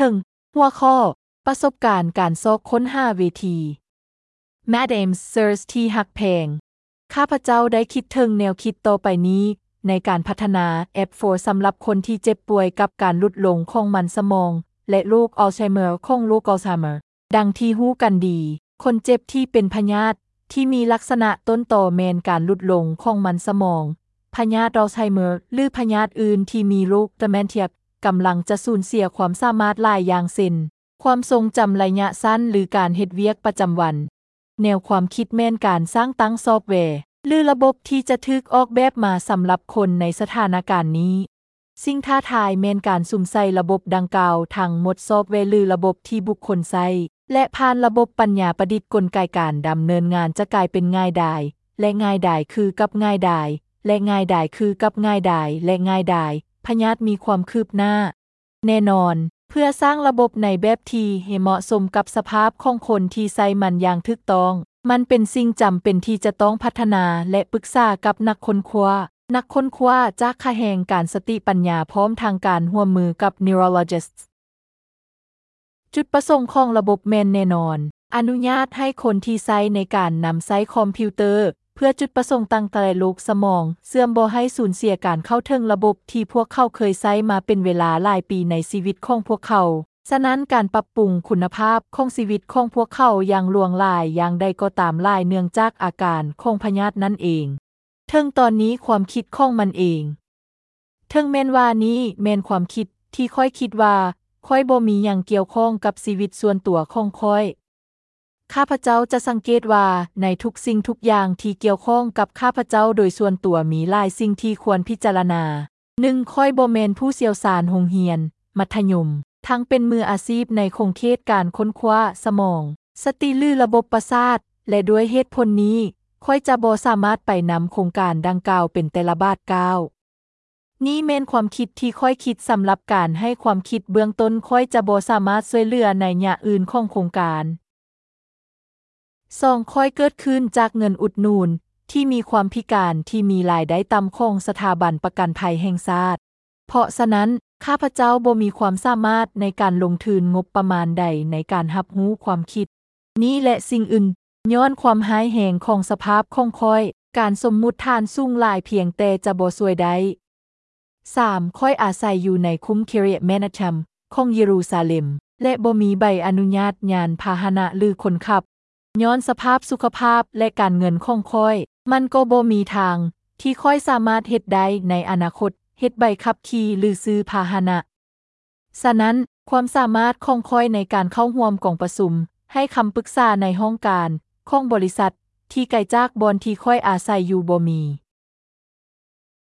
ເຖິງຫົວຂໍ້ປະສົບການການຊອກຄົ້ນຫາເວທີ. Madame Sears ທີ່ຮັກແພງ, ຂ້າພະເຈົ້າໄດ້ຄິດເຖິງແນວຄິດຕໍ່ໄປນີ້ໃນການພັດທະນາແອັບໂຟສຳລັບຄົນທີ່ເຈັບປ່ວຍກັບການຫຼຸດລົງຂອງມັນສະໝອງ ແລະ ໂລກອັລໄຊເມີຂອງໂລກອັລໄຊເມີ. ດັ່ງທີ່ຮູ້ກັນດີ, ຄົນເຈັບທີ່ເປັນພະຍາດທີ່ມີລັກສະນະຕົ້ນຕໍແມ່ນການຫຼຸດລົງຂອງມັນສະໝອງ, ພະຍາດອັລໄຊເມີ ຫຼື ພະຍາດອື່ນທີ່ມີໂລກເມນເທຍ ກຳລັງຈະສູນເສຍຄວາມສາມາດຫຼາຍຢ່າງເຊັ່ນ ຄວາມຊົງຈຳໄລຍະສັ້ນ ຫຼື ການເຮັດວຽກປະຈຳວັນ. ແນວຄວາມຄິດແມ່ນການສ້າງຕັ້ງຊອບແວ ຫຼື ລະບົບທີ່ຈະຖືກອອກແບບມາສຳລັບຄົນໃນສະຖານະການນີ້. ສິ່ງທ້າທາຍແມ່ນການສຸມໃສ່ລະບົບດັ່ງກ່າວທັງໝົດ, ຊອບແວ ຫຼື ລະບົບທີ່ບຸກຄົນໃຊ້ ແລະ ຜ່ານລະບົບປັນຍາປະດິດກົນໄກການດຳເນີນງານຈະກາຍເປັນງ່າຍດາຍ ແລະ ງ່າຍດາຍຄືກັບງ່າຍດາຍ ແລະ ງ່າຍດາຍຄືກັບງ່າຍດາຍ ແລະ ງ່າຍດາຍ. ພະຍາດມີຄວາມຄືບໜ້າ. ແນ່ນອນ, ເພື່ອສ້າງລະບົບໃນແບບທີ່ໃຫ້ເໝາະສົມກັບສະພາບຂອງຄົນທີ່ໃຊ້ມັນຢ່າງຖືກຕ້ອງ, ມັນເປັນສິ່ງຈຳເປັນທີ່ຈະຕ້ອງພັດທະນາ ແລະ ປຶກສາກັບນັກຄົ້ນຄວ້າ. ນັກຄົ້ນຄວ້າຈາກຂະແໜງການສະຕິປັນຍາ ພ້ອມທັງການຮ່ວມມືກັບ neurologists. ຈຸດປະສົງຂອງລະບົບແມ່ນແນ່ນອນ, ອະນຸຍາດໃຫ້ຄົນທີ່ໃຊ້ໃນການນຳໃຊ້ຄອມພິວເຕີ ເພື່ອຈຸດປະສົງຕ່າງໆ ແລະ ໂລກສະໝອງເສື່ອມບໍ່ໃຫ້ສູນເສຍການເຂົ້າເຖິງລະບົບທີ່ພວກເຂົາເຄີຍໃຊ້ມາເປັນເວລາຫຼາຍປີໃນຊີວິດຂອງພວກເຂົາ. ສະນັ້ນ, ການປັບປຸງຄຸນນະພາບຂອງຊີວິດຂອງພວກເຂົາຢ່າງຫຼວງຫຼາຍຢ່າງໃດກໍຕາມຫຼາຍເນື່ອງຈາກອາການຂອງພະຍາດນັ້ນເອງ. ເຖິງຕອນນີ້ຄວາມຄິດຂອງມັນເອງ. ເຖິງແມ່ນວ່ານີ້ແມ່ນຄວາມຄິດທີ່ຂ້ອຍຄິດວ່າ ຂ້ອຍບໍ່ມີຫຍັງກ່ຽວຂ້ອງກັບຊີວິດສ່ວນຕົວຂອງຂ້ອຍ. ຂ້າພະເຈົ້າຈະສັງເກດວ່າໃນທຸກສິ່ງທຸກຢ່າງທີ່ກ່ຽວຂ້ອງກັບຂ້າພະເຈົ້າໂດຍສ່ວນຕົວ ມີຫຼາຍສິ່ງທີ່ຄວນພິຈາລະນາ. ໜຶ່ງ, ຂ້ອຍບໍ່ແມ່ນຜູ້ຊ່ຽວຊານໂຮງຮຽນມັດທະຍົມ, ທັງເປັນມືອາຊີບໃນຂົງເຂດການຄົ້ນຄວ້າສະໝອງ, ສະຕິ ຫຼື ລະບົບປະສາດ, ແລະ ດ້ວຍເຫດຜົນນີ້, ຂ້ອຍຈະບໍ່ສາມາດໄປນຳໂຄງການດັ່ງກ່າວເປັນແຕ່ລະບາດກ້າວ. ນີ້ແມ່ນຄວາມຄິດທີ່ຂ້ອຍຄິດສຳລັບການໃຫ້ຄວາມຄິດເບື້ອງຕົ້ນ, ຂ້ອຍຈະບໍ່ສາມາດຊ່ວຍເຫຼືອໄລຍະອື່ນຂອງໂຄງການ. ສອງ, ຂ້ອຍເກີດຂຶ້ນຈາກເງິນອຸດໜູນທີ່ມີຄວາມພິການທີ່ມີລາຍໄດ້ຕ່ຳຂອງສະຖາບັນປະກັນໄພແຫ່ງຊາດ. ເພາະສະນັ້ນ, ຂ້າພະເຈົ້າບໍ່ມີຄວາມສາມາດໃນການລົງທຶນງົບປະມານໃດໃນການຮັບຮູ້ຄວາມຄິດນີ້ ແລະ ສິ່ງອື່ນ. ຍ້ອນຄວາມຮ້າຍແຮງຂອງສະພາບຂອງຂ້ອຍ, ການສົມມຸດຖານສູງຫຼາຍພຽງແຕ່ຈະບໍ່ຊ່ວຍໄດ້. ສາມ, ຂ້ອຍອາໄສຢູ່ໃນຄຸ້ມ Kiryat Menachem ຂອງເຢຣູຊາເລັມ ແລະ ບໍ່ມີໃບອະນຸຍາດຍານພາຫະນະ ຫຼື ຄົນຂັບ. ຍ້ອນສະພາບສຸຂະພາບ ແລະ ການເງິນຂອງຂ້ອຍ, ມັນກໍບໍ່ມີທາງທີ່ຂ້ອຍສາມາດເຮັດໄດ້ໃນອະນາຄົດ, ເຮັດໃບຂັບຂີ່ ຫຼື ຊື້ພາຫະນະ. ສະນັ້ນ, ຄວາມສາມາດຂອງຂ້ອຍໃນການເຂົ້າຮ່ວມກອງປະຊຸມ, ໃຫ້ຄຳປຶກສາໃນຫ້ອງການຂອງບໍລິສັດທີ່ໄກຈາກບ່ອນທີ່ຂ້ອຍອາໄສຢູ່ບໍ່ມີ.